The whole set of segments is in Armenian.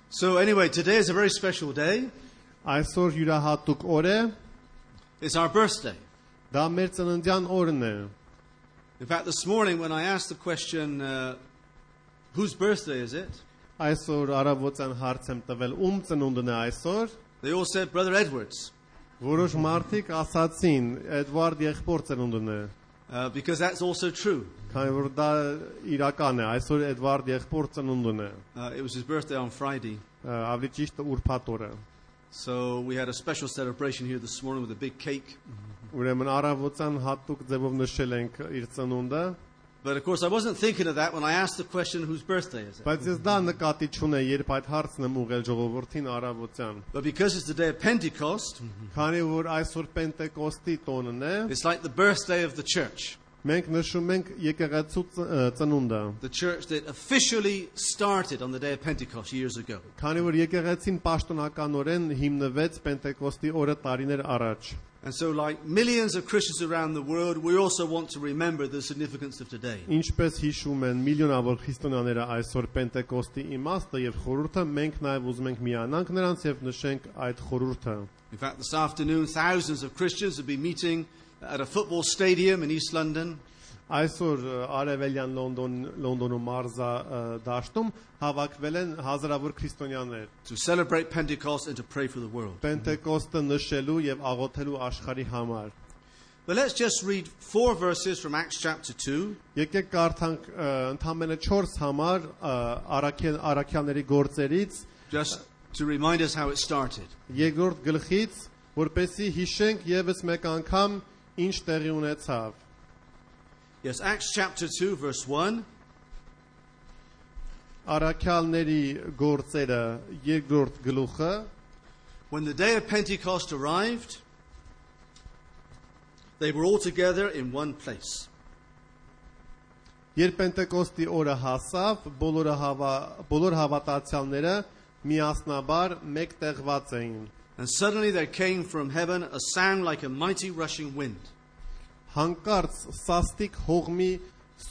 So anyway, today is a very special day. Այսօր յուրահատուկ օր է, It's our birthday. դա մեր ծննդյան օրն է։ In fact, this morning when I asked the question, whose birthday is it? Այսօր առավոտյան հարց եմ տվել ում ծնունդն է այսօր, They all said, Brother Edwards, որոշ մարդիկ ասացին Էդվարդ եղբոր ծնունդն է, because that's also true. քանի որ դա իրական է, այսօր Էդվարդ եղբոր ծնունդն է, It was his birthday on Friday. ավելի ճիշտ ուրբաթ օրը։ So we had a special celebration here this morning with a big cake. Ուրեմն առավոտյան հատուկ ձևով նշել ենք իր ծնունդը, But of course, I wasn't thinking of that when I asked the question, whose birthday is it? բայց ես դա նկատի չունեի, երբ այդ հարցն եմ ուղղել ժողովրդին առավոտյան, But because it's the day of Pentecost, քանի որ այսօր Պենտեկոստի տոնն է, it's like the birthday of the church. մենք նշում ենք եկեղեցու ծնունդը, The church that officially started on the day of Pentecost years ago. քանի որ եկեղեցին պաշտոնականորեն հիմնվեց Պենտեկոստի օրը տարիներ առաջ։ And so, like millions of Christians around the world, we also want to remember the significance of today. Ինչպես հիշում են միլիոնավոր քրիստոնյաները այսօր Պենտեկոստի իմաստը եւ խորհուրդը, մենք նաեւ ուզում ենք միանանք նրանց եւ նշենք այդ խորհուրդը։ In fact, this afternoon, thousands of Christians will be meeting at a football stadium in East London. Այսօր արևելյան Լոնդոնում մարզա դաշտում հավաքվել են հազարավոր քրիստոնյաներ To celebrate Pentecost and to pray for the world. Պենտեկոստը նշելու եւ աղոթելու աշխարհի համար։ But let's just read 4 verses from Acts chapter 2. Եկեք կարդանք ընդամենը 4 համար Առաքյալների գործերից Just to remind us how it started. երկրորդ գլխից, որպեսզի հիշենք եւս մեկ անգամ ինչ տեղի ունեցավ։ Yes, Acts chapter 2, verse 1. Առաքյալների գործերը երկրորդ գլուխը, When the day of Pentecost arrived, they were all together in one place. երբ Պենտեկոստի օրը հասավ, բոլոր հավատացյալները միասնաբար մեկտեղված էին։ And suddenly there came from heaven a sound like a mighty rushing wind. Հանկարծ սաստիկ հողմի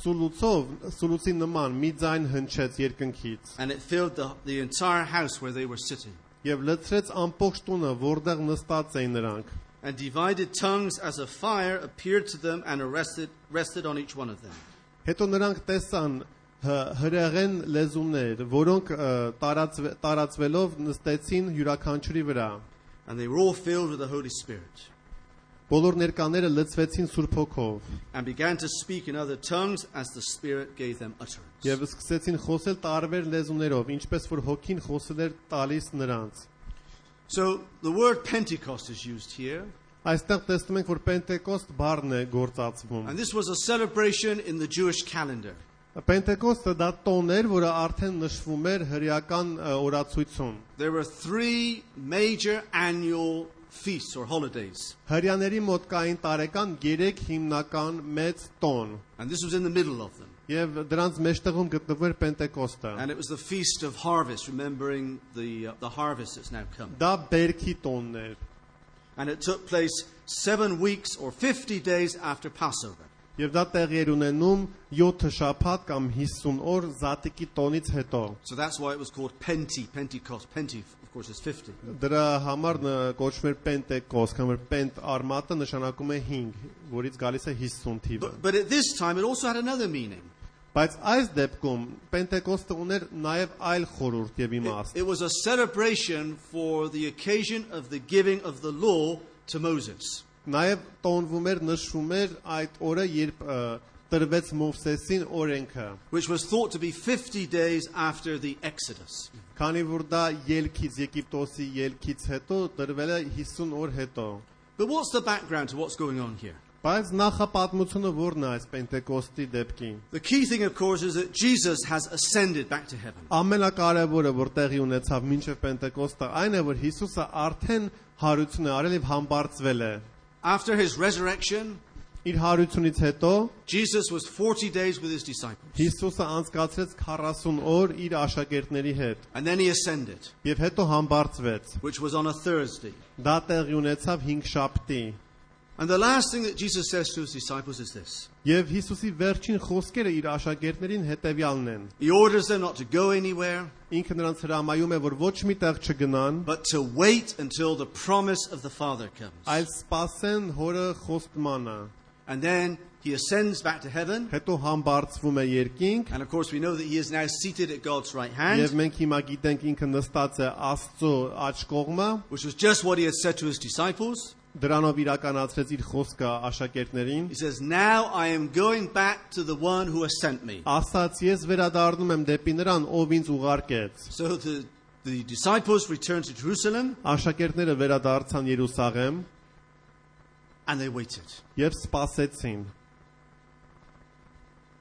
սուլուցի նման մի ձայն հնչեց երկնքից And it filled the entire house where they were sitting. եւ լցրեց ամբողջ տունը, որտեղ նստած էին նրանք։ And divided tongues as a fire appeared to them and rested on each one of them. Հետո նրանք տեսան հրեղեն լեզուներ, որոնք տարածվելով նստեցին յուրաքանչյուրի վրա։ And they were all filled with the Holy Spirit. Բոլոր ներկաները լցվեցին Սուրբ Հոգով And began to speak in other tongues as the Spirit gave them utterance. եւ սկսեցին խոսել տարբեր լեզուներով, ինչպես որ Հոգին խոսել էր տալիս նրանց։ So the word Pentecost is used here. Այստեղ տեսնում ենք, որ Պենտեկոստ բառն է գործածվում։ And this was a celebration in the Jewish calendar. Պենտեկոստը դա տոն էր, որը արդեն նշվում էր հրեական օրացույցում։ There were 3 major annual feasts or holidays. Հրեաների մոտ կային տարեկան 3 հիմնական մեծ տոն, And this was in the middle of them. եւ դրանց մեջտեղում գտնվում էր Պենտեկոստը։ And it was the feast of harvest, remembering the harvest that's now come. Դա բերքի տոնն էր, And it took place 7 weeks or 50 days after Passover. եւ դա տեղի էր ունենում 7 շաբաթ կամ 50 օր Զատիկի տոնից հետո։ So that's why it was called Pentecost. Pente, of course, is 50. Դրա համար կոչվում էր Պենտեկոստ, կամ որ Պենտ արմատը նշանակում է 5, որից գալիս է 50 թիվը։ But at this time, it also had another meaning. Բայց այս դեպքում Պենտեկոստը ուներ նաև այլ խորհուրդ եւ իմաստ։ It was a celebration for the occasion of the giving of the law to Moses. Նաև տոնվում էր, նշվում էր այդ օրը, երբ տրվեց Մովսեսին օրենքը, Which was thought to be 50 days after the Exodus. քանի որ դա ելքից Եգիպտոսի ելքից հետո տրվել է 50 օր հետո։ But what's the background to what's going on here? Բայց նախապատմությունը որն է այս Պենտեկոստի դեպքին։ The key thing, of course, is that Jesus has ascended back to heaven. Ամենակարևորը, որ տեղի ունեցավ մինչև Պենտեկոստը, այն է, որ Հիսուսը արդեն հարություն է արել եւ համբարձվել է։ After his resurrection, Իր հարությունից հետո Jesus was 40 days with his disciples. Հիսուսը անցկացրեց 40 օր իր աշակերտների հետ And then he ascended, եւ հետո համբարձվեց։ which was on a Thursday. Դա տեղի ունեցավ 5 շաբթի։ And the last thing that Jesus says to his disciples is this. Եվ Հիսուսի վերջին խոսքերը իր աշակերտներին հետևյալն են. He orders them not to go anywhere, Ինքը նրանց հրամայում է, որ ոչ մի տեղ չգնան, but to wait until the promise of the Father comes. այլ սպասեն հորը խոստմանը։ And then he ascends back to heaven. Հետո համբարձվում է երկինք, And of course we know that he is now seated at God's right եւ hand, մենք հիմա գիտենք ինքը նստած է Աստծո աջ կողմը, which was just what he had said to his disciples. դրանով իրականացրեց իր խոսքը աշակերտներին։ He says, now I am going back to the one who has sent me. Ասաց ես վերադառնում եմ դեպի նրան, ով ինձ ուղարկեց։ So the disciples returned to Jerusalem Աշակերտները վերադարձան Երուսաղեմ and they waited. եւ սպասեցին։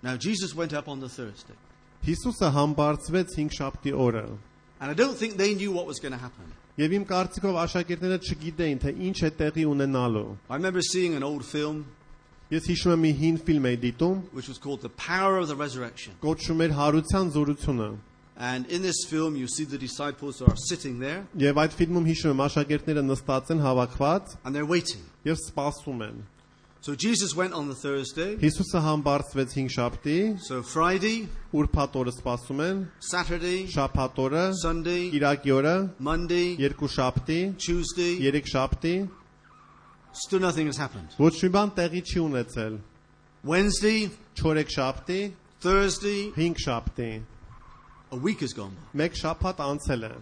Now Jesus went up on the Thursday. Հիսուսը համբարձվեց 5 շաբթի օրը։ And I don't think they knew what was going to happen. Եվ իմ կարծիքով աշակերտները չգիտեին, թե ինչ է տեղի ունենալու։ I remember seeing an old film Ես հիշում եմ մի հին ֆիլմ էի դիտում, which was called The Power of the Resurrection. կոչվում էր Հարության զորությունը։ And in this film you see the disciples are sitting there Եվ այդ ֆիլմում հիշում եմ աշակերտները նստած են հավաքված and they're waiting. եւ սպասում են։ So Jesus went on the Thursday. Հիսուսը համբարձվեց 5 շաբթի, So Friday, ուրբաթ օրը սպասում են, Saturday, շաբաթ օրը, Sunday, Կիրակի օրը, Monday, 2 շաբթի, Tuesday, 3 շաբթի, still nothing has happened. ոչ մի բան տեղի չի ունեցել։ Wednesday, 4 շաբթի, Thursday, 5 շաբթի, a week has gone by. 1 շաբաթ anցել է։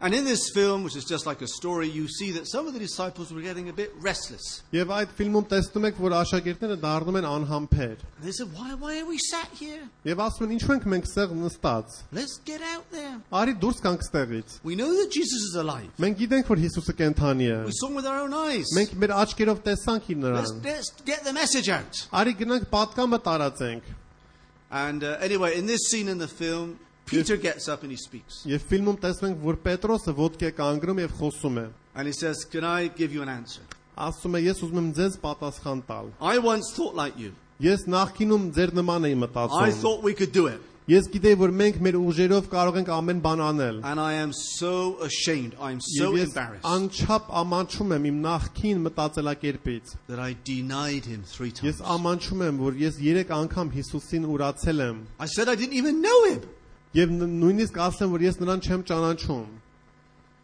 And in this film, which is just like a story, you see that some of the disciples were getting a bit restless. Եվ այդ ֆիլմում տեսնում եք, որ աշակերտները դառնում են անհամբեր։ And they said, why are we sat here? Եվ ասում են, ինչու ենք մենք ստեղ նստած։ Let's get out there. Արի դուրս գանք ստեղից։ We know that Jesus is alive. Մենք gիտենք, որ Հիսուսը կենթանի է։ We saw him with our own eyes. Մենք մեր աչքերով տեսանք իր նրան։ Let's get the message out. Արի գնանք պատկամը տարածենք։ And anyway, in this scene in the film, Peter gets up and he speaks. Եվ ֆիլմում տեսնում ենք, որ Պետրոսը ոտքի է կանգնում եւ խոսում է։ And he says, can I give you an answer? Ասում է, ես ուզում եմ ձեզ պատասխան տալ։ I once thought like you. Ես նախկինում ձեր նման էի I մտածում։ thought we could do it. Ես գիտեի, որ մենք մեր ուժերով կարող ենք ամեն բան անել։ And I am so ashamed. I am so Եվ ես embarrassed անչափ ամանչում եմ իմ նախկին մտածելակերպից։ that I denied him 3 times. Ես ամանչում եմ, որ ես 3 անգամ Հիսուսին ուրացել եմ։ I said I didn't even know him. Եվ նույնիսկ ասեմ, որ ես նրան չեմ ճանաչում։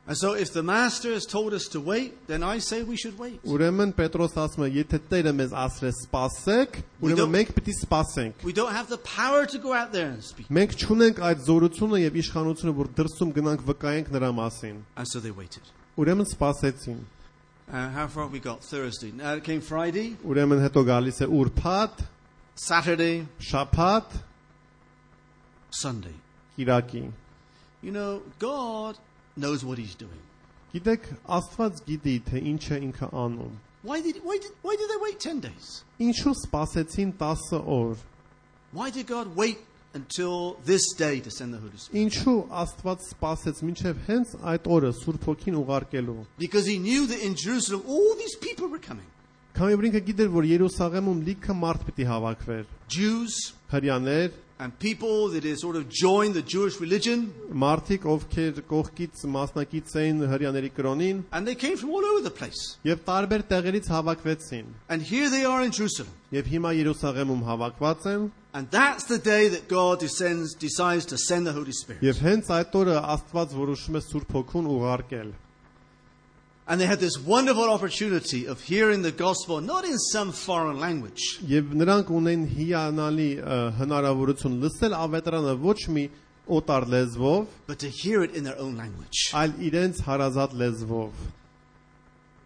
And so if the master has told us to wait, then I say we should wait. Ուրեմն Պետրոս ասում է, եթե Տերը մեզ ասել է սպասեք, ուրեմն մենք պիտի սպասենք։ We don't have the power to go out there and speak. Մենք չունենք այդ զորությունը եւ իշխանությունը, որ դրսում գնանք վկայենք նրա մասին։ And so they waited. Ուրեմն սպասեցին։ How far have we got? Thursday. Now it came Friday, Ուրեմն հետո գալիս է ուրբաթ, Saturday, շաբաթ, Sunday. Կիրակի։ You know, God knows what he's doing. Գիտեք, Աստված գիտի, թե ինչ է ինքը անում։ Why did they wait 10 days? Ինչու սպասեցին 10 օր։ Why did God wait until this day to send the Holy Spirit? Ինչու Աստված սպասեց մինչև հենց այդ օրը Սուրբ Հոգին ուղարկելու։ Because he knew that in Jerusalem all these people were coming. Քանի որ ինքը գիտեր, որ Երուսաղեմում լիքը մարդ պիտի հավաքվեր։ Jews Հրյաներ, and people that had sort of joined the Jewish religion. մարդիկ, ովքեր կողքից մասնակից էին հրյաների կրոնին, And they came from all over the place. եւ տարբեր տեղերից հավաքվեցին։ And here they are in Jerusalem. Եվ հիմա Երուսաղեմում հավաքված են, And that's the day that God decides to send the Holy Spirit. եւ հենց այդ օրը Աստված որոշում է Սուրբ Հոգուն ուղարկել։ And they had this wonderful opportunity of hearing the gospel not in some foreign language, Եվ նրանք ունեն հիանալի հնարավորություն լսել ավետարանը ոչ մի օտար լեզվով, but to hear it in their own language. այլ իրենց հարազատ լեզվով։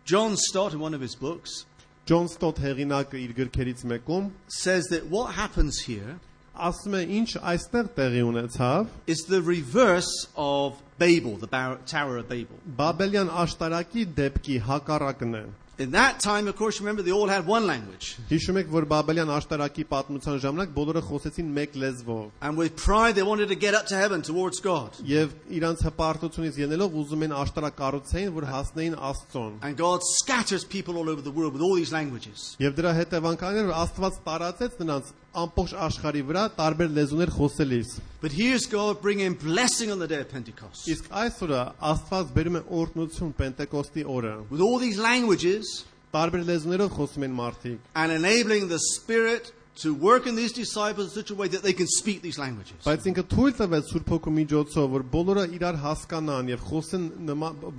John Stott, in one of his books, Ջոն Ստոթ հեղինակը իր գրքերից մեկում says that what happens here ասում է, ինչ այստեղ տեղի ունեցավ, is the reverse of Babel, the Tower of Babel. Բաբելյան աշտարակի դեպքի հակառակն է։ In that time, of course, remember, they all had one language. Հիշում եք, որ Բաբելյան աշտարակի պատմության ժամանակ բոլորը խոսեցին մեկ լեզվով։ And with pride, they wanted to get up to heaven towards God. Եվ իրանց հպարտությունից ելնելով ուզում են աշտարակ կառուցեին, որ հասնեին Աստծուն։ And God scatters people all over the world with all these languages. Եվ դրա հետևանքն էր, որ Աստված տարածեց նրանց ամբողջ աշխարհի վրա տարբեր լեզուներ խոսելիս։ But here's God bringing blessing on the day of Pentecost. Իսկ այսօրը Աստված բերում է օրհնություն Պենտեկոստի օրը։ With all these languages, տարբեր լեզուներով խոսում են մարդիկ and enabling the Spirit to work in these disciples in such a way that they can speak these languages. բայց ինքը թույլ տվեց Սուրբ Հոգու միջոցով որ բոլորը իրար հասկանան եւ խոսեն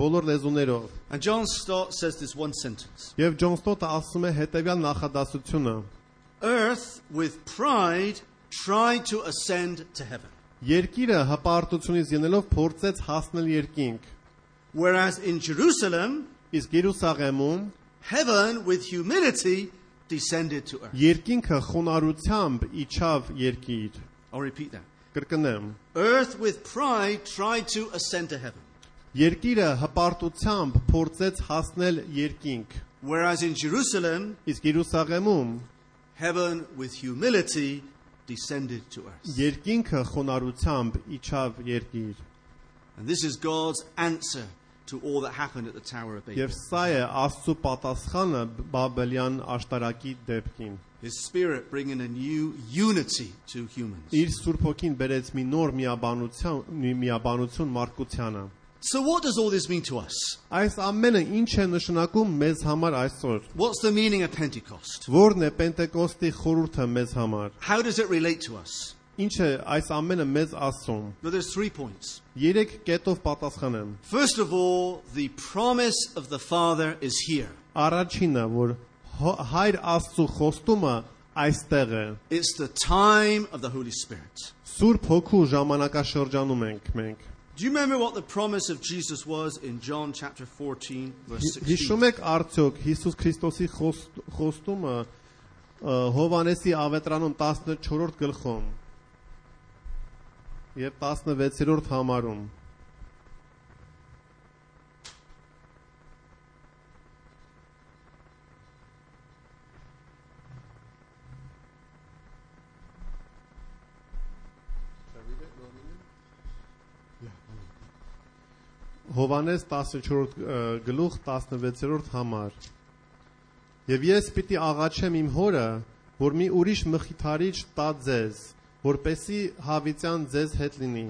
բոլոր լեզուներով And John Stott says this one sentence. եւ Ջոն Ստոտը ասում է հետեւյալ նախադասությունը Earth with pride tried to ascend to heaven, Երկիրը հպարտությունից ելնելով փորձեց հասնել երկինք whereas in Jerusalem, իսկ Երուսաղեմում heaven with humility descended to earth. երկինքը խոնարհությամբ իջավ երկիր I'll repeat that. կրկնեմ Earth with pride tried to ascend to heaven, Երկիրը հպարտությամբ փորձեց հասնել երկինք whereas in Jerusalem, իսկ Երուսաղեմում heaven with humility descended to earth. երկինքը խոնարհությամբ իջավ երկիր And this is God's answer to all that happened at the Tower of Babel. Եվ սա է Աստծո պատասխանը Բաբելյան աշտարակի դեպքին His Spirit bringing a new unity to humans. Իր Սուրբ Հոգին բերեց մի նոր միաբանություն մարդկությանը So what does all this mean to us? Այս ամենը ինչ է նշանակում մեզ համար այսօր What's the meaning of Pentecost? Որն է Պենտեկոստի խորհուրդը մեզ համար How does it relate to us? Ինչ է այս ամենը մեզ ասում Well, there's 3 points. 3 կետով պատասխանեմ First of all, the promise of the Father is here. Առաջինը որ Հայր Աստծո խոստումը այստեղ է It's the time of the Holy Spirit. Սուրբ Հոգու ժամանակաշրջանում ենք մենք Do you remember what the promise of Jesus was in John chapter 14, verse 16? Հիշում եք արդյոք Հիսուս Քրիստոսի խոստումը Հովանեսի ավետրանում 14-րդ գլխում եւ 16-րդ համարում Հովանես 14-րդ գլուխ 16-րդ համար Եվ ես պիտի աղաչեմ իմ հորը որ մի ուրիշ մխիթարիչ տա ձեզ որպեսի հավիտյան ձեզ հետ լինի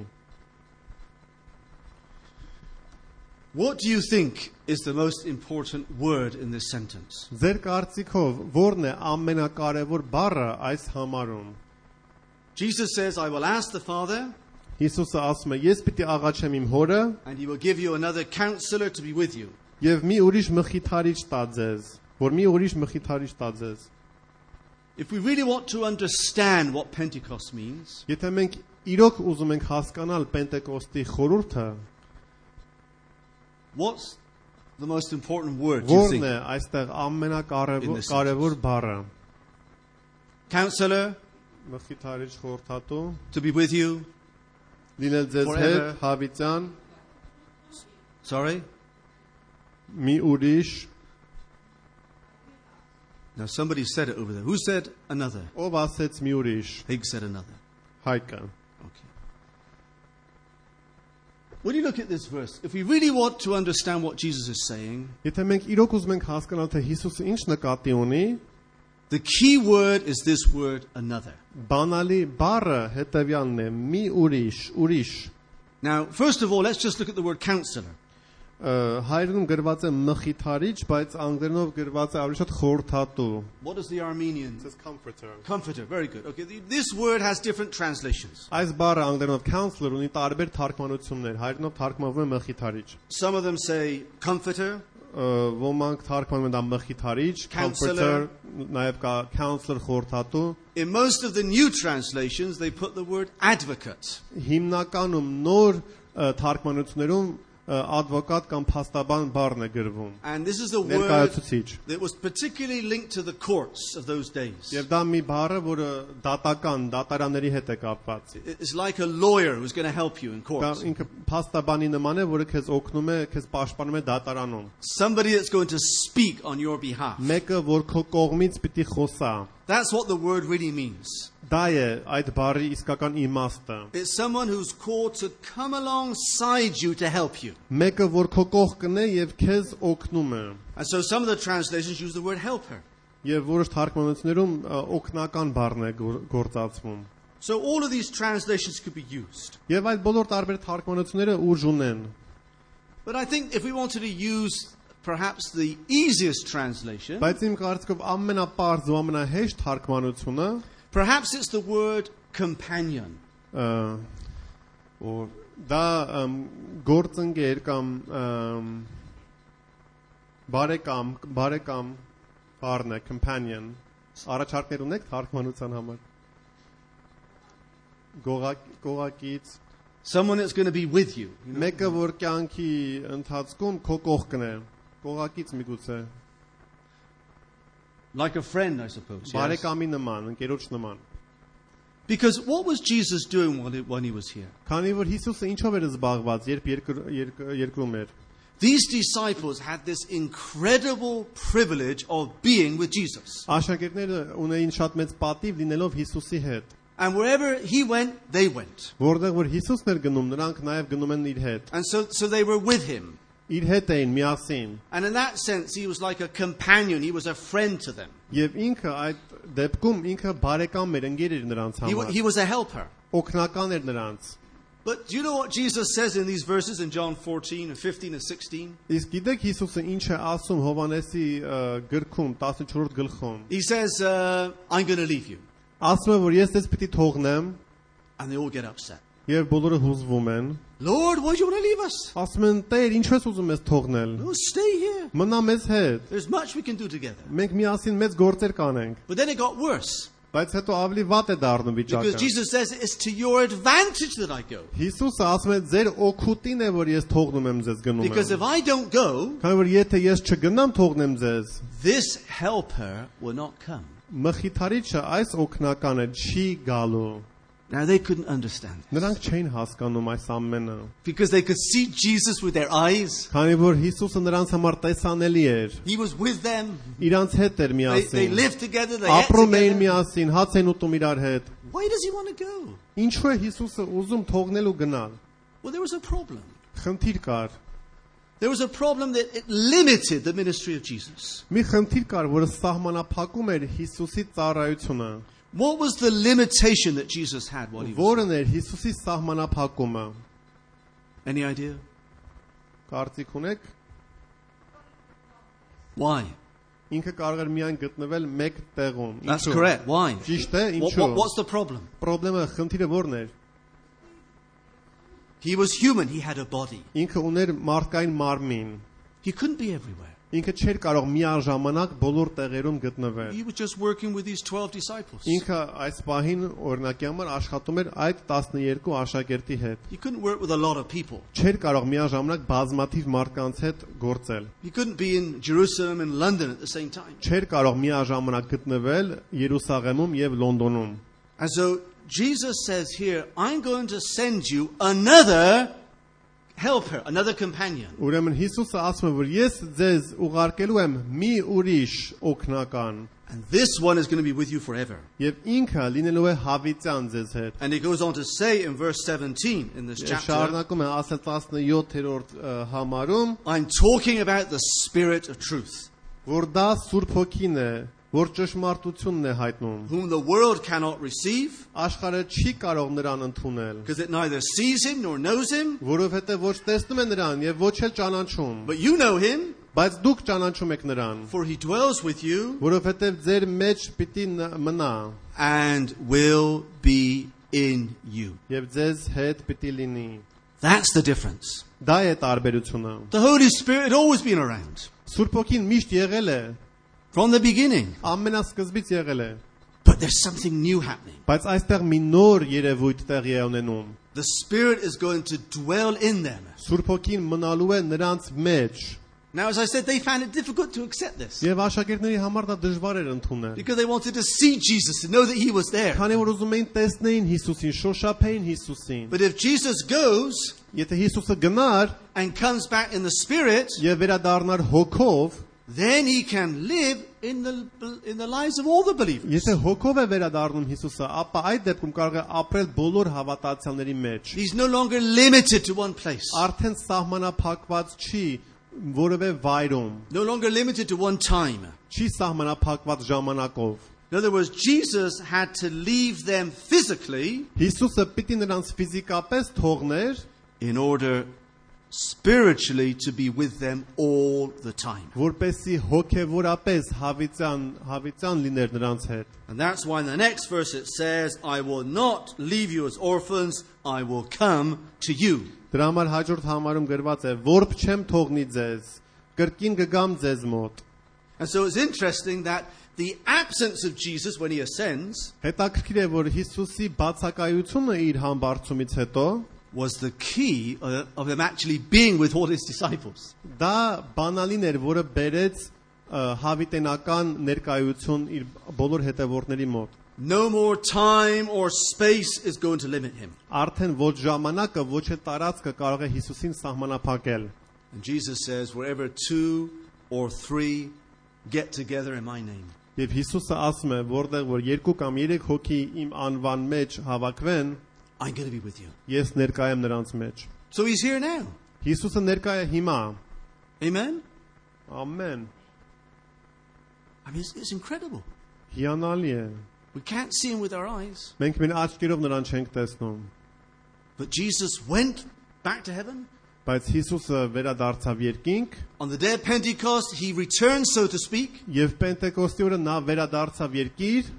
What do you think is the most important word in this sentence? Ձեր կարծիքով որն է ամենակարևոր բառը այս համարում Jesus says, I will ask the Father, Հիսուսը ասում է ես պիտի աղաչեմ իմ հորը and he will give you another counselor to be with you. եւ մի ուրիշ մխիթարիչ տա ձեզ որ մի ուրիշ մխիթարիչ տա ձեզ If we really want to understand what Pentecost means, Եթե մենք իրոք ուզում ենք հասկանալ Պենտեկոստի խորհուրդը what's the most important word, do you որն think? է այստեղ ամենակարևոր բառը Counselor, մխիթարիչ խորհրդատու to be with you. լինել ձեզ հետ Forever. հավիտյան Sorry? մի ուրիշ Now somebody said it over there. Who said another? ով ասեց մի ուրիշ Higgs said another. հայկը Okay. When you look at this verse, if we really want to understand what Jesus is saying, Եթե մենք իրոք ուզում ենք հասկանալ թե Հիսուսը ինչ նկատի ունի the key word is this word another. բանալի բառը հետևյալն է մի ուրիշ Now, first of all, let's just look at the word counselor. հայերենում գրված է մխիթարիչ բայց անգլերենով գրված է ավելի շատ խորհրդատու What does the Armenian? comforter Comforter. Very good. Okay, this word has different translations. Այս բառը անգլերենով counselor ունի տարբեր թարգմանություններ հայերենով թարգմանվում է մխիթարիչ Some of them say comforter, ոմանք թարգմանում են դա մխիթարիչ comforter նաև կա counselor խորհրդատու in most of the new translations, they put the word advocate. հիմնականում նոր թարգմանություններում advocate կամ փաստաբան բառն է գրվում And this is a word ներկայացուցիչ that was particularly linked to the courts of those days. Եվ դա մի բառը, որը դատարանների հետ է կապված։ It's like a lawyer who's going to help you in Դա court. ինքը փաստաբանի նման է, որը քեզ օգնում է, քեզ պաշտպանում է դատարանում։ Somebody that's going to speak on your behalf. Մեկը, որ քո կողմից պիտի խոսա։ That's what the word really means. Դա է այդ բառի իսկական իմաստը։ It's someone who's called to come alongside you to help you. Մեկը, որ քո կողքն է եւ քեզ օգնում է։ And so some of the translations use the word helper. Եվ որոշ թարգմանություններում օգնական բառն է գործածվում։ So all of these translations could be used. Եվ այդ բոլոր տարբեր թարգմանությունները ուժ ունեն։ But I think if we wanted to use perhaps the easiest translation, Բայց իմ կարծիքով ամենապարզ ու ամենահեշտ թարգմանությունը perhaps it's the word companion. Or դա գործընկեր կամ բարեկամ բառն է companion առաջարկներ ունեք թարգմանության համար գողակից Someone that's going to be with you. մեկը որ կյանքի ընթացքում քո կողքն է գողակից միգուցե Like a friend, I suppose. Yes. բարեկամի նման ընկերոջ նման Because what was Jesus doing when he was here? քանի որ Հիսուսը ինչով էր զբաղված երբ երկրում էր These disciples had this incredible privilege of being with Jesus. Աշակերտները ունեին շատ մեծ պատիվ լինելով Հիսուսի հետ And wherever he went, they went. որտեղ որ Հիսուսն էր գնում նրանք նաև գնում են իր հետ And so they were with him. իր հետ էին միասին And in that sense, he was like a companion. He was a friend to them. Եվ ինքը այդ դեպքում ինքը բարեկամ էր ընկեր էր նրանց համար He was a helper. օգնական էր նրանց But do you know what Jesus says in these verses in John 14 and 15 and 16? Իսկ գիտեք Հիսուսը ինչ է ասում Հովհաննեսի գրքում 14-րդ գլխում He says, I'm going to leave you. ասում է որ ես դες պիտի թողնեմ And they all get upset. եւ բոլորը հուզվում են Lord, why do you want to leave us? ասում են Տեր ինչու ես ուզում ես թողնել No, stay here. մնա մեզ հետ There's much we can do together. մենք միասին մեծ գործեր կանենք But then it got worse. բայց հետո ավելի վատ է դառնում Because վիճակը Jesus says it's to your advantage that I go. Հիսուսը ասում է ձեր օգուտին է որ ես թողնում եմ ձեզ գնում Because եմ if I don't go, քանի որ եթե ես չգնամ թողնեմ ձեզ this helper will not come. մխիթարիչը այս օգնականը չի գալու Now they couldn't understand it. նրանք չէին հասկանում այս ամենը Because they could see Jesus with their eyes. քանի որ Հիսուսը նրանց համար տեսանելի էր He was with them. իրանց հետ էր They միասին lived together. They ate ապրում էին together. միասին հաց են ուտում իրար հետ Why does he want to go? ինչու է Հիսուսը ուզում թողնել ու գնալ Well, there was a problem. խնդիր կար There was a problem that it limited the ministry of Jesus. մի խնդիր կար որը սահմանափակում էր Հիսուսի ծառայությունը What was the limitation that Jesus had while he was որն էր Հիսուսի սահմանափակումը Any idea? կարծիք ունեք Why? ինքը կարող էր միայն գտնվել մեկ տեղում That's correct. Why? ճիշտ է ինչու What's the problem? Պրոբլեմը խնդիրը որն էր He was human. He had a body. ինքը ուներ մարդկային մարմին He couldn't be everywhere. ինքը չէր կարող միաժամանակ բոլոր տեղերում գտնվել He was just working with these 12 disciples. ինքը այս պահին օրինակի համար աշխատում էր այդ 12 աշակերտի հետ He couldn't work with a lot of people. չէր կարող միաժամանակ բազմաթիվ մարդկանց հետ գործել He couldn't be in Jerusalem and London at the same time. չէր կարող միաժամանակ գտնվել Երուսաղեմում եւ Լոնդոնում And so Jesus says here, I'm going to send you another helper, another companion. ուրեմն Հիսուսը ասում է որ ես ձեզ ուղարկելու եմ մի ուրիշ օգնական And this one is going to be with you forever. եւ ինքը լինելու է հավիտյան ձեզ հետ And he goes on to say in verse 17 in this chapter, շարունակում է ասել 17-րդ համարում I'm talking about the Spirit of truth, որ դա Սուրբ Հոգին է որ ճշմարտությունն է հայտնում whom the world cannot receive, աշխարհը չի կարող նրան ընդունել because it neither sees him nor knows him, որովհետեւ ոչ տեսնում է նրան եւ ոչ էլ ճանաչում but you know him, բայց դուք ճանաչում եք նրան for he dwells with you որովհետեւ ձեր մեջ պիտի մնա and will be in you. եւ ձեզ հետ պիտի լինի That's the difference. դա է տարբերությունը The Holy Spirit had always been around Սուրբ Հոգին միշտ եղել է from the beginning, ամենասկզբից եղել է but there's something new happening. բայց այստեղ մի նոր երևույթ տեղի է ունենում The Spirit is going to dwell in them. Սուրբ Հոգին մնալու է նրանց մեջ Now, as I said, they found it difficult to accept this եւ աշակերտների համար դա դժվար էր ընդունել because they wanted to see Jesus, to know that he was there. քանի որ ուզում էին տեսնեին Հիսուսին շոշափեին Հիսուսին But if Jesus goes եթե Հիսուսը գնար and comes back in the Spirit, եւ վերադառնար հոգով then he can live in the lives of all the believers. եթե հոգով է վերադառնում Հիսուսը ապա այդ դեպքում կարող է ապրել բոլոր հավատացյալների մեջ He's no longer limited to one place, արդեն սահմանափակված չի որևէ վայրում no longer limited to one time. չի սահմանափակված ժամանակով In other words, Jesus had to leave them physically Հիսուսը պիտի նրանց ֆիզիկապես թողներ in order spiritually to be with them all the time. որպեսի հոգևորապես հավիտյան լիներ նրանց հետ։ And that's why in the next verse it says, I will not leave you as orphans, I will come to you. Դրա համար հաջորդ համարում գրված է. Որբ չեմ թողնի ձեզ, կրկին կգամ ձեզ մոտ։ And so it's interesting that the absence of Jesus when he ascends Հետաքրքիր է, որ Հիսուսի բացակայությունը իր համբարձումից հետո was the key of him actually being with all his disciples. դա բանալին էր, որը բերեց հավիտենական ներկայություն իր բոլոր հետևորդների մոտ։ No more time or space is going to limit him. Արդեն ոչ ժամանակը, ոչ է տարածքը կարող է Հիսուսին սահմանափակել։ And Jesus says, wherever 2 or 3 get together in my name, Եվ Հիսուսը ասում է, որտեղ որ 2 կամ 3 հոգի իմ անվան մեջ հավաքվեն, I'm going to be with you. ես ներկա եմ նրանց մեջ։ So he's here now. Հիսուսը ներկա է հիմա։ Amen? Ամեն։ I mean, it's incredible. Հիանալի է։ We can't see him with our eyes. Մենք մեր աչքերով նրան չենք տեսնում, But Jesus went back to heaven. բայց Հիսուսը վերադարձավ երկինք, On the day of Pentecost, he returned, so to speak, եւ Պենտեկոստի օրը նա վերադարձավ երկիր,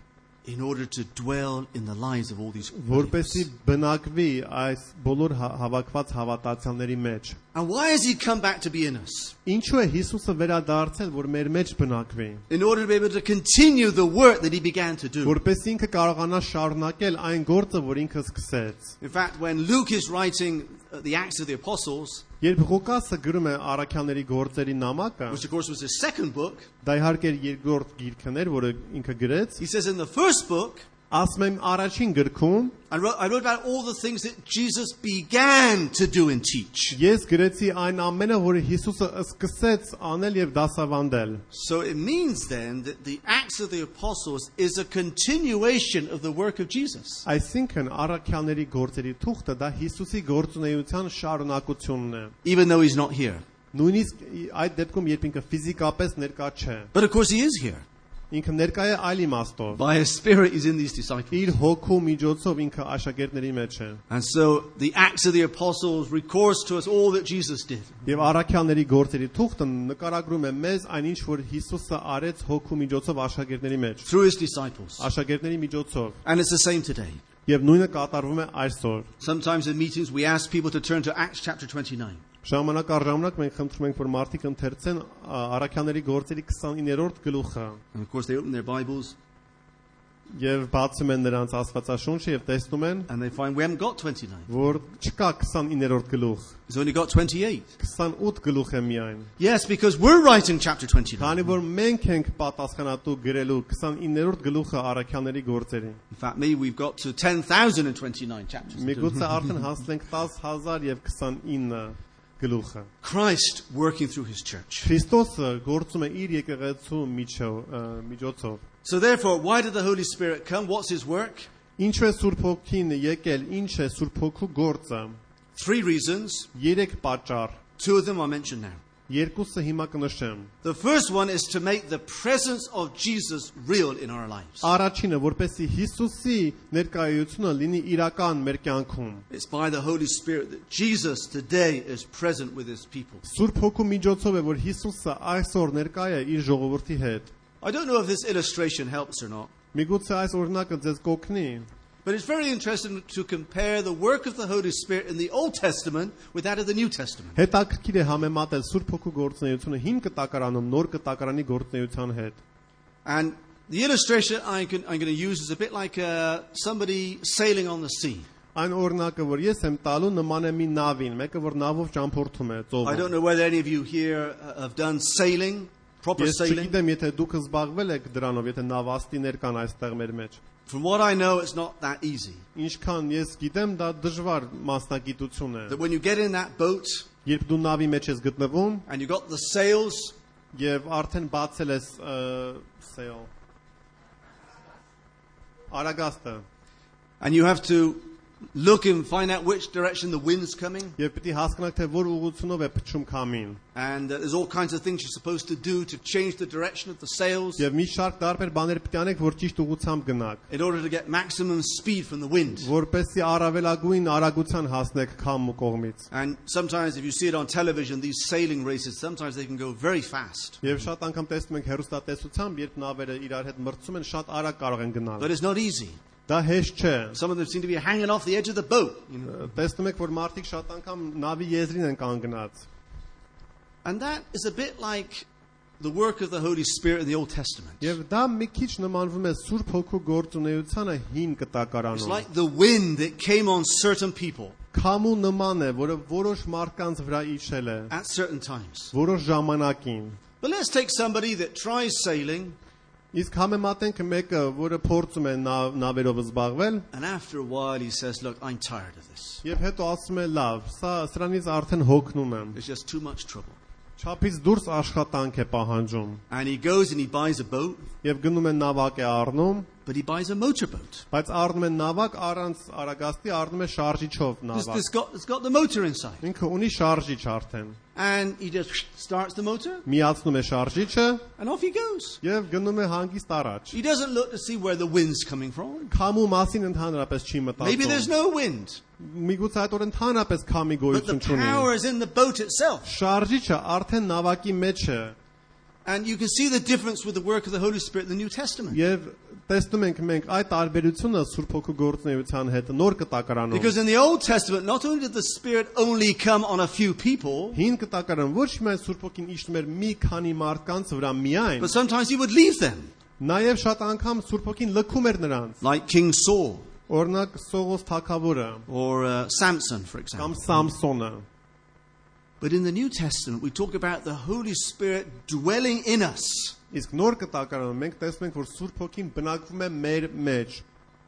in order to dwell in the lives of all these որպեսզի believers. բնակվի այս բոլոր հավաքված հավատացյալների մեջ։ And why has he come back to be in us? Ինչու է Հիսուսը վերադարձել, որ մեր մեջ բնակվի, In order to be able to continue the work that he began to do. որպեսզի ինքը կարողանա շարունակել այն գործը, որ ինքը սկսեց։ In fact, when Luke is writing the Acts of the Apostles, Երբ Ղուկասը գրում է Առաքյալների գործերի նամակը, which of course was his second book, դա իհարկե երկրորդ գիրքն էր, որը ինքը գրեց, he says in the first book, ասում եմ առաջին գրքում, I wrote about all the things that Jesus began to do and teach. ես գրեցի այն ամենը, որը Հիսուսը սկսեց անել եւ դասավանդել։ So it means then that the Acts of the Apostles is a continuation of the work of Jesus. Այսինքն Առաքյալների գործերի թուղթը դա Հիսուսի գործունեության շարունակությունն է։ Even though he's not here. Նույնիսկ այդ դեպքում, երբ ինքը ֆիզիկապես ներկա չէ, But of course he is here. ինքը ներկա է այլ իմաստով։ By his Spirit he's in these disciples. Իր հոգու միջոցով ինքը աշակերտների մեջ է։ And so the Acts of the Apostles records to us all that Jesus did. Եվ Առաքյալների գործերի թուղթը նկարագրում է մեզ այնինչ, որ Հիսուսը արեց հոգու միջոցով աշակերտների մեջ, Through his disciples. աշակերտների միջոցով։ And it's the same today. Եվ նույնը կատարվում է այսօր։ Sometimes in meetings we ask people to turn to Acts chapter 29. Ժամանակ առ ժամանակ մենք խնդրում ենք, որ մարդիկ ընթերցեն Առաքյալների գործերի 29-րդ գլուխը And of course they open their Bibles եւ բացում են նրանց Աստվածաշունչը եւ տեսնում են, and they find we haven't got 29. որ չկա 29-րդ գլուխ, It's only got 28. 28 գլուխ է միայն։ Yes, because we're writing chapter 29. Քանի որ մենք ենք պատասխանատու գրելու 29-րդ գլուխը Առաքյալների գործերի։ In fact, maybe we've got to 10,029 chapters. Միգուցե արդեն հասնենք 10,000 եւ 29 գլուխը։ Christ working through his church. Քրիստոսը գործում է իր եկեղեցու միջոցով։ So therefore, why did the Holy Spirit come? What's his work? Ինչ է Սուրբ Հոգին եկել, ինչ է Սուրբ Հոգու գործը։ 3 reasons. 3 պատճառ, 2 of them I'll mention now. երկուսը հիմա կնշեմ։ The first one is to make the presence of Jesus real in our lives. Առաջինը, որպեսզի Հիսուսի ներկայությունը լինի իրական մեր կյանքում։ It's by the Holy Spirit that Jesus today is present with his people. Սուրբ Հոգու միջոցով է, որ Հիսուսը այսօր ներկա է իր ժողովրդի հետ։ I don't know if this illustration helps or not, Միգուցե այս օրինակը ձեզ կօգնի, but it's very interesting to compare the work of the Holy Spirit in the Old Testament with that of the New Testament. հետաքրքիր է համեմատել Սուրբ Հոգու գործունեությունը հին կտակարանում նոր կտակարանի գործունեության հետ։ And the illustration I'm going to use is a bit like somebody sailing on the sea. Այն օրինակը, որ ես եմ տալու, նման է մի նավին, մեկը որ նավով ճամփորդում է I ծովում։ don't know whether any of you here have done sailing, proper Ես sailing. չգիտեմ, եթե դուք զբաղվել եք դրանով, եթե նավաստիներ կան այստեղ մեր մեջ։ From what I know, it's not that easy. Ինչքան ես գիտեմ, դա դժվար մասնագիտություն է։ That when you get in that boat Երբ դու նավի մեջ ես գտնվում and you got the sails, եւ արդեն բացել ես sail արագաստը, and you have to look and find out which direction the wind's coming. Եվ պիտի հասկանաք թե որ ուղղությունով է փչում քամին։ And there's all kinds of things you're supposed to do to change the direction of the sails Եվ մի շարք տարբեր բաներ պիտի անեք, որ ճիշտ ուղղությամբ գնաք, in order to get maximum speed from the wind. որպեսզի առավելագույն արագության հասնեք քամու կողմից։ And sometimes if you see it on television, these sailing races, sometimes they can go very fast. Եվ շատ անգամ տեսնում ենք հեռուստատեսությամբ, երբ նավերը իրար հետ մրցում են, շատ արագ կարող են գնալ։ But it's not easy. Դա հեշտ չէ։ Some of them seem to be hanging off the edge of the boat. You know? Տեսնում եք, որ մարդիկ շատ անգամ նավի եզրին են կանգնած։ And that is a bit like the work of the Holy Spirit in the Old Testament. Եվ դա մի քիչ նմանվում է Սուրբ Հոգու գործունեությանը հին It's կտակարանում։ like the wind that came on certain people Քամու նման է, որը որոշ մարդկանց վրա իջել է, at certain times. որոշ ժամանակին։ But let's take somebody that tries sailing, Իսկ համեմատենք մեկը, որը փորձում է նավերով զբաղվել, and after a while he says, "Look, I'm tired of this. եւ հետո ասում է, լավ, սրանից արդեն հոգնում եմ։ It's just too much trouble." Չափից դուրս աշխատանք է պահանջում։ And he goes and he buys a boat, Եվ գնում է նավակ է առնում, but he buys a motorboat. բայց առնում է նավակ առանց արագաստի, առնում է շարժիչով նավակ։ It's got the motor inside. Ինքը ունի շարժիչ արդեն։ And he just starts the motor, Միացնում է շարժիչը and off he goes. եւ գնում է հանգիստ առաջ։ He doesn't look to see where the wind's coming from. Քամու մասին ընդհանրապես չի Maybe there's մտածում։ no wind, Միգուցե այդ օր ընդհանրապես քամի but the գոյություն չունի։ power is in the boat itself. Շարժիչը արդեն նավակի մեջ է And you can see the difference with the work of the Holy Spirit in the New Testament. եւ տեսնում ենք մենք այդ տարբերությունը Սուրբ Հոգու գործունեության հետ նոր կտակարանում։ Because in the Old Testament, not only did the Spirit only come on a few people, Հին կտակարան ոչ միայն Սուրբ Հոգին իջնում էր մի քանի մարդկանց վրա միայն, but sometimes he would leave them, նաև շատ անգամ Սուրբ Հոգին լքում էր նրանց։ like King Saul Օրինակ Սողոս թագավորը or Samson, for կամ example. Սամսոնը։ But in the New Testament, we talk about the Holy Spirit dwelling in us, Իսկ նոր կտակարանում մենք տեսնում ենք, որ Սուրբ Հոգին բնակվում է մեր մեջ,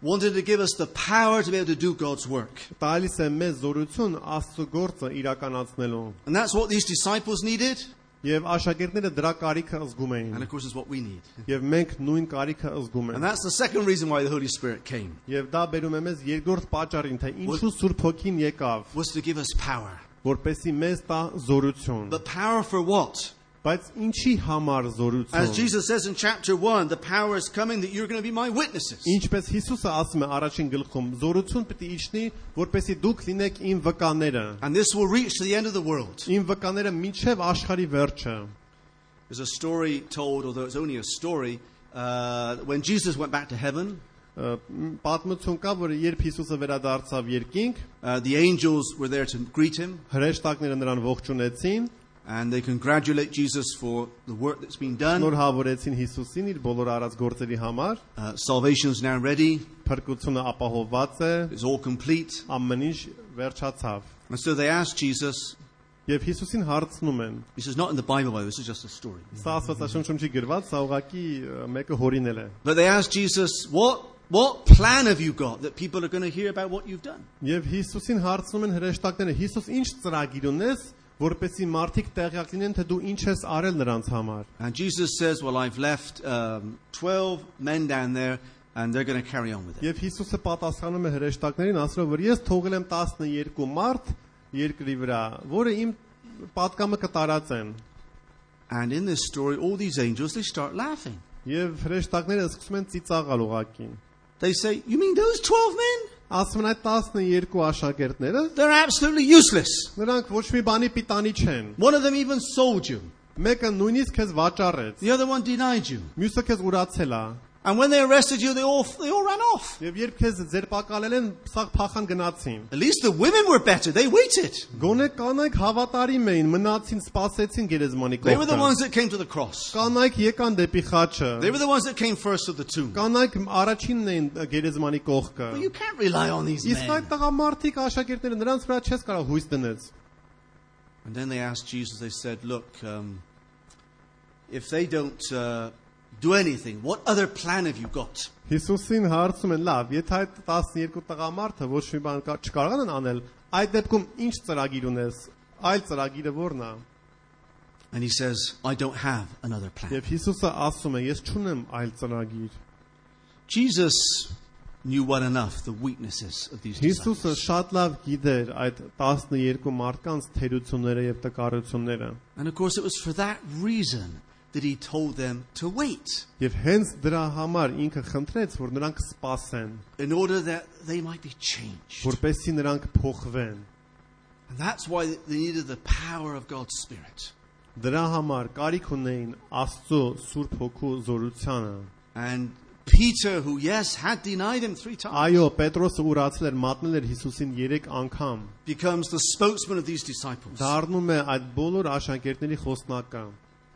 wanted to give us the power to be able to do God's work. տալիս է մեզ զորություն Աստծո գործը իրականացնելու։ And that's what these disciples needed, Եվ աշակերտները դրա կարիքը զգում and էին։ of course, is what we need. Եվ մենք նույն կարիքը զգում And ենք։ that's the second reason why the Holy Spirit came, Եվ դա բերում է մեզ երկրորդ պատճառին, թե ինչու Սուրբ Հոգին եկավ, was to give us power. որպեսզի մեզ տա զորություն։ But power for what? Բայց ինչի համար As զորություն։ Jesus says in chapter 1, the power is coming that you're going to be my witnesses. Ինչպես Հիսուսը ասում է առաջին գլխում, զորություն պետք է իջնի, որպեսզի դուք լինեք իմ վկաները։ And this will reach to the end of the world. Իմ վկաները մինչև աշխարհի վերջը։ There's a story told, although it's only a story, when Jesus went back to heaven, Պատմություն կա, որ երբ Հիսուսը վերադարձավ երկինք, the angels were there to greet him, հրեշտակները նրան ողջունեցին, and they congratulate Jesus for the work that's been done. շնորհավորեցին Հիսուսին իր բոլոր արած գործերի համար, Salvation's now ready. փրկությունը ապահովված է, It's all complete. ամեն ինչ վերջացավ։ And so they asked Jesus, Եվ Հիսուսին հարցնում են, this is not in the Bible, by the way, this is just a story. սա Աստվածաշնչում չի գրված, սա ուղղակի մեկը հորինել է։ But they asked Jesus, what plan have you got that people are going to hear about what you've done? Եվ Հիսուսին հարցնում են հրեշտակները, Հիսուս ինչ ծրագիր ունես, որպեսզի մարդիկ տեղյակ լինեն, թե դու ինչ ես արել նրանց համար։ And Jesus says, well, I've left 12 men down there, and they're going to carry on with it. Եվ Հիսուսը պատասխանում է հրեշտակներին, ասելով, որ ես թողել եմ 12 մարդ երկրի վրա, որը իմ պատկամը կտարածեն։ And in this story, all these angels, they start laughing. Եվ հրեշտակները սկսում են ծիծաղալ ուղակի։ They say, you mean those 12 men? Ասում են այդ 12 աշակերտները, They're absolutely useless. նրանք ոչ մի բանի պիտանի չեն։ One of them even sold you. Մեկը նույնիսկ քեզ վաճառեց, The other one denied you. մյուսը քեզ ուրացել է։ And when they arrested you, they all ran off. Եվ երբ քեզ ձերբակալել են, սաղ փախան գնացին։ At least the women were better. They waited. Գոնե կանայք հավատարիմ էին, մնացին, սպասեցին գերեզմանի They were the կողքը։ ones that came to the cross. Կանայք եկան դեպի խաչը։ They were the ones that came first to the tomb. Կանայք առաջինն էին գերեզմանի կողքը։ But you can't rely on these Իսկ այդ men. տղամարդիկ աշակերտները նրանց վրա չես կարող հույս դնես։ And then they asked Jesus, they said, look, if they don't do anything, what other plan have you got? Հիսուսին հարցում են, լավ, եթե այդ 12 տղամարդը ոչ մի բան չկարողան են անել, այդ դեպքում ինչ ծրագիր ունես, այլ ծրագիրը ո՞րն է։ And he says, I don't have another plan. Եվ Հիսուսը ասում է, ես չունեմ այլ ծրագիր։ Jesus knew well enough the weaknesses of these Հիսուսը disciples. շատ լավ գիտեր այդ 12 մարդկանց թերությունները եւ տկարությունները։ And of course, it was for that reason that he told them to wait, Եվ հենց դրա համար ինքը խնդրեց, որ նրանք սպասեն, in order that they might be changed. որպեսզի նրանք փոխվեն։ And that's why they needed the power of God's Spirit. Դրա համար կարիք ունեին Աստծո Սուրբ Հոգու զորությանը։ And Peter, who, yes, had denied him 3 times, Այո, Պետրոսը ուրացել էր, մատնել էր Հիսուսին 3 անգամ։ becomes the spokesman of these disciples Դառնում է այդ բոլոր աշակերտների խոսնակը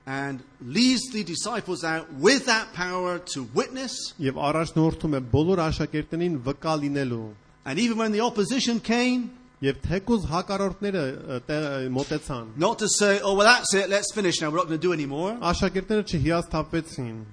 and leads the disciples out with that power to witness. եւ առաջնորդում է բոլոր աշակերտներին վկա լինելու։ And even when the opposition came, Եվ թեկուզ հակառորդները մոտեցան։ not to say, oh, well, that's it, let's finish now, we're not going to do any more, Աշակերտները չհիասթափվեցին,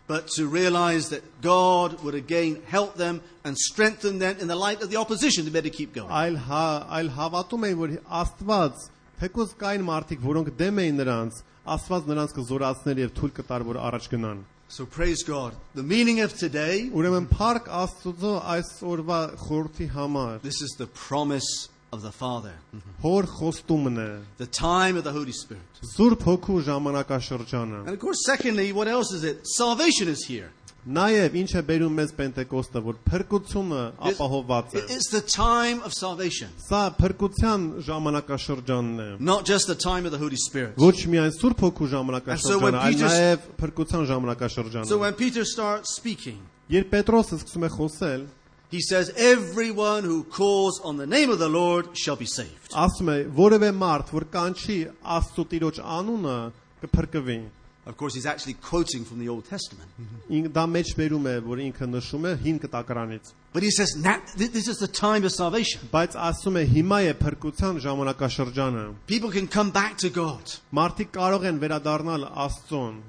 but to realize that God would again help them and strengthen them in the light of the opposition to better keep going. այլ հավատում էին, որ Աստված թեկուզ կային մարդիկ, որոնք դեմ էին նրանց, Աստված նրանց կզորացներ եւ թույլ կտար, որ առաջ գնան։ So praise God. The meaning of today, Ուրեմն փառք Աստծո այս օրվա խորհրդի համար։ this is the promise of the Father, Հոր խոստումն է, the time of the Holy Spirit. Սուրբ Հոգու ժամանակաշրջանը։ And of course, secondly, what else is it? Salvation is here. Նաև ինչ է բերում մեզ Պենտեկոստը, որ փրկությունը ապահովված է։ It's the time of salvation, Սա փրկության ժամանակաշրջանն է։ not just the time of the Holy Spirit. Ոչ միայն Սուրբ Հոգու And so when ժամանակաշրջանը, այլ Peter- նաև փրկության So ժամանակաշրջանը։ when Peter starts speaking, Երբ Պետրոսը սկսում է խոսել, he says, everyone who calls on the name of the Lord shall be saved. ասում է, որևէ մարդ, որ կանչի Աստծո Տիրոջ անունը, կփրկվի։ Of course, he's actually quoting from the Old Testament. Դա մեջ բերում է, որ ինքը նշում է հին կտակարանից։ But he says, now, this is the time of salvation. Բայց ասում է, հիմա է փրկության ժամանակաշրջանը։ People can come back to God. Մարդիկ կարող են վերադառնալ Աստծուն։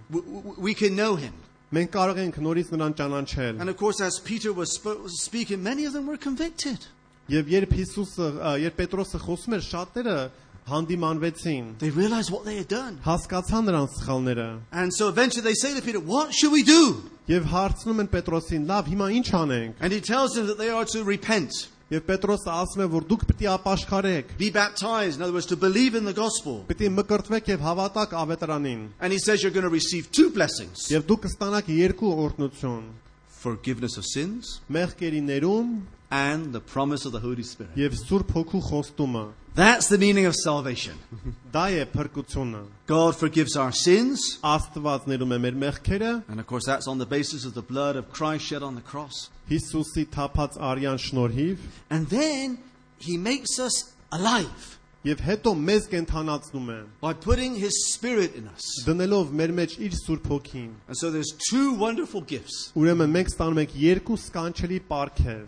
We can know him. Մենք կարող ենք նորից նրան ճանաչել։ And of course, as Peter was speaking, many of them were convicted. Եվ երբ Պետրոսը խոսում էր, շատերը հանդիմանվեցին, They realized what they had done. հասկացան նրանց սխալները։ And so eventually they say to Peter, what should we do? Եվ հարցնում են Պետրոսին, լավ, հիմա ինչ անենք։ And he tells them that they are to repent, Եվ Պետրոսը ասում է, որ դուք պիտի ապաշխարեք, be baptized, in other words, to believe in the gospel. պիտի մկրտվեք եւ հավատաք ավետարանին։ And he says you're going to receive 2 blessings, Եվ դուք կստանաք 2 օրհնություն՝ forgiveness of sins մեղքերի ներում and the promise of the Holy Spirit. եւ Սուրբ Հոգու խոստումը։ That's the meaning of salvation. Դա է փրկությունը։ God forgives our sins. Աստված ներում է մեր մեղքերը, And of course, that's on the basis of the blood of Christ shed on the cross. Հիսուսի թափած արյան շնորհիվ, And then he makes us alive եւ հետո մեզ կենթանացնում է, by putting his Spirit in us. դնելով մեր մեջ իր Սուրբ Հոգին։ And so there's 2 wonderful gifts, Ուրեմն մենք ստանում ենք 2 սկանչելի պարգև՝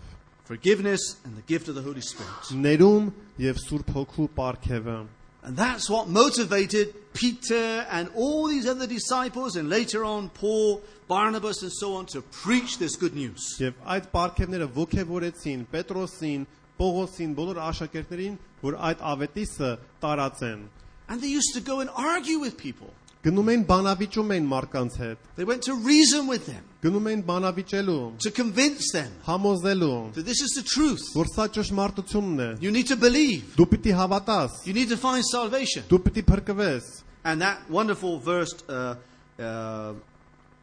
forgiveness and the gift of the Holy Spirit. ներում եւ Սուրբ Հոգու պարգևը։ And that's what motivated Peter and all these other disciples, and later on Paul, Barnabas, and so on, to preach this good news. Եվ այդ պարգևները ոգևորեցին Պետրոսին, Պողոսին, բոլոր աշակերտներին, որ այդ ավետիսը տարածեն։ And they used to go and argue with people. Գնում էին բանավիճում էին մարդկանց հետ, They went to reason with them, գնում էին բանավիճելու, to convince them համոզելու, that this is the truth. որ սա ճշմարտությունն է։ You need to believe. Դու պիտի հավատաս, You need to find salvation. դու պիտի փրկվես։ And that wonderful verse,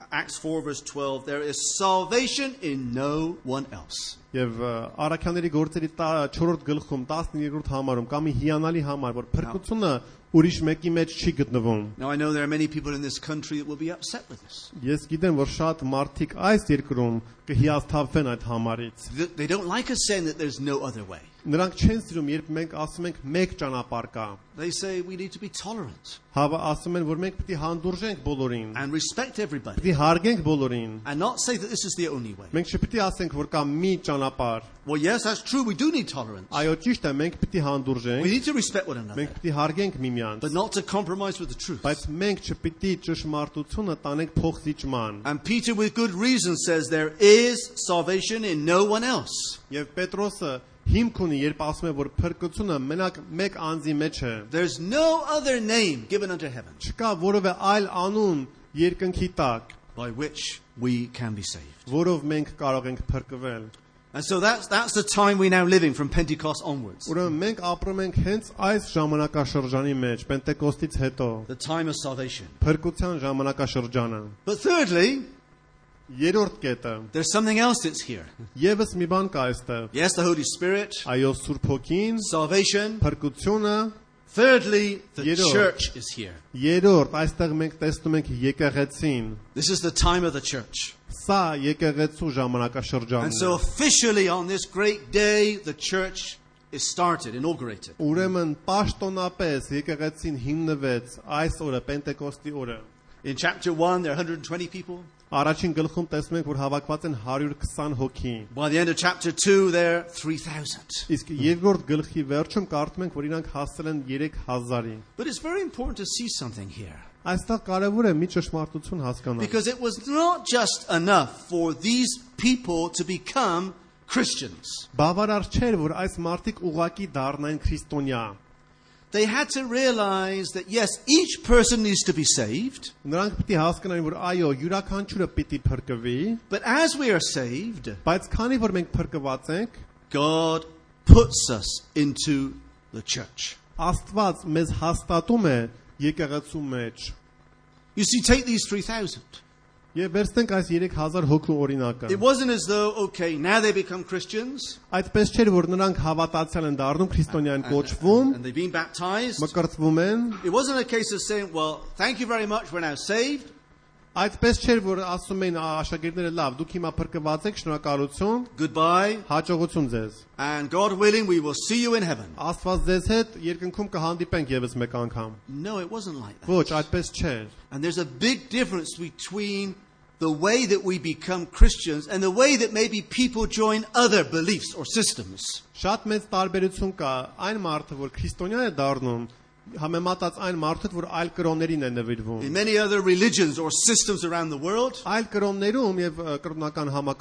Acts 4 verse 12, there is salvation in no one else. Եվ Առաքյանների գործերի 4-րդ գլխում 12-րդ համարում կա մի հիանալի համար, որ փրկությունը ուրիշ մեկի մեջ չի գտնվում։ Now I know there are many people in this country that will be upset with this. Ես գիտեմ, որ շատ մարդիկ այս երկրում կհիասթափվեն այդ համարից։ They don't like us saying that there's no other way. Նրանք չեն սիրում, երբ մենք ասում ենք մեկ ճանապարհ կա։ They say we need to be tolerant Հավա ասում են, որ մենք պիտի հանդուրժենք բոլորին, and respect everybody պիտի հարգենք բոլորին։ and not say that this is the only way. Մենք չպիտի ասենք, որ կա մի ճանապարհ։ Well, yes, that's true. We do need tolerance. Այո, ճիշտ է, մենք պիտի We հանդուրժենք, need to respect one another, մենք պիտի հարգենք միմյանց, but not to compromise with the truth. բայց մենք չպիտի ճշմարտությունը տանենք փոխզիջման։ And Peter, with good reason, says there is salvation in no one else. Եվ Պետրոսը հիմք ունի, երբ ասում է, որ փրկությունը մենակ մեկ անձի մեջ է։ There's no other name given unto heaven Չկա որևէ այլ անուն երկնքի տակ, by which we can be saved. որով մենք կարող ենք փրկվել։ And so that's the time we're now living from Pentecost onwards. Ուրեմն մենք ապրում ենք հենց այս ժամանակաշրջանի մեջ, Պենտեկոստից հետո, The time of salvation. փրկության ժամանակաշրջանը։ But thirdly, Երրորդ կետը, there's something else that's here. եւս մի բան կա այստեղ։ Yes, the Holy Spirit, Այո, Սուրբ Հոգին, salvation. փրկությունը, Thirdly, the Երրորդ. church is here. երրորդ, այստեղ մենք տեսնում ենք եկեղեցին։ This is the time of the church. Սա եկեղեցու ժամանակաշրջանն And է։ so officially on this great day, the church is started, inaugurated. Ուրեմն պաշտոնապես եկեղեցին հիմնվեց այս օրը, Պենտեկոստի օրը։ In chapter 1, there are 120 people. Առաջին գլխում տեսնում ենք, որ հավաքված են 120 հոգի։ By the end of chapter 2, there are 3,000. Իսկ երկրորդ գլխի վերջում կարդում ենք, որ իրանք հասել են 3000-ի։ But it's very important to see something here. Այստեղ կարևոր է մի ճշմարտություն հասկանալ։ Because it was not just enough for these people to become Christians. Բավարար չէր, որ այս մարդիկ ուղակի դառնային քրիստոնյա։ They had to realize that, yes, each person needs to be saved. Նրանք պիտի հասկանային, որ այո, յուրաքանչյուրը պիտի փրկվի, But as we are saved, բայց քանի որ մենք փրկված ենք, God puts us into the church. Աստված մեզ հաստատում է եկեղեցու մեջ։ You see, take these 3,000. Եվ վերցնենք այս 3000 հոգու օրինակը։ It wasn't as though, okay, now they become Christians Այդպես չէր, որ նրանք հավատացյալ են դառնում, քրիստոնյա են կոչվում, and they've been baptized. մկրտվում են։ It wasn't a case of saying, well, thank you very much, we're now saved. Այդպես չէր, որ ասում էին աշակերտները լավ, դուք հիմա փրկված եք, շնորհակալություն, Goodbye. հաջողություն ձեզ։ And God willing, we will see you in heaven. Աստված ձեզ հետ երկնքում կհանդիպենք եւս մեկ անգամ։ No, it wasn't like that. Ոչ, այդպես չէր։ And there's a big difference between the way that we become Christians and the way that maybe people join other beliefs or systems. Շատ մեծ տարբերություն կա այն մարդը, որ քրիստոնյա է դառնում, համեմատած այն մարդը, որ այլ կրոններին է նվիրվում։ In many other religions or systems around the world, Այլ կրոններում եւ կրոնական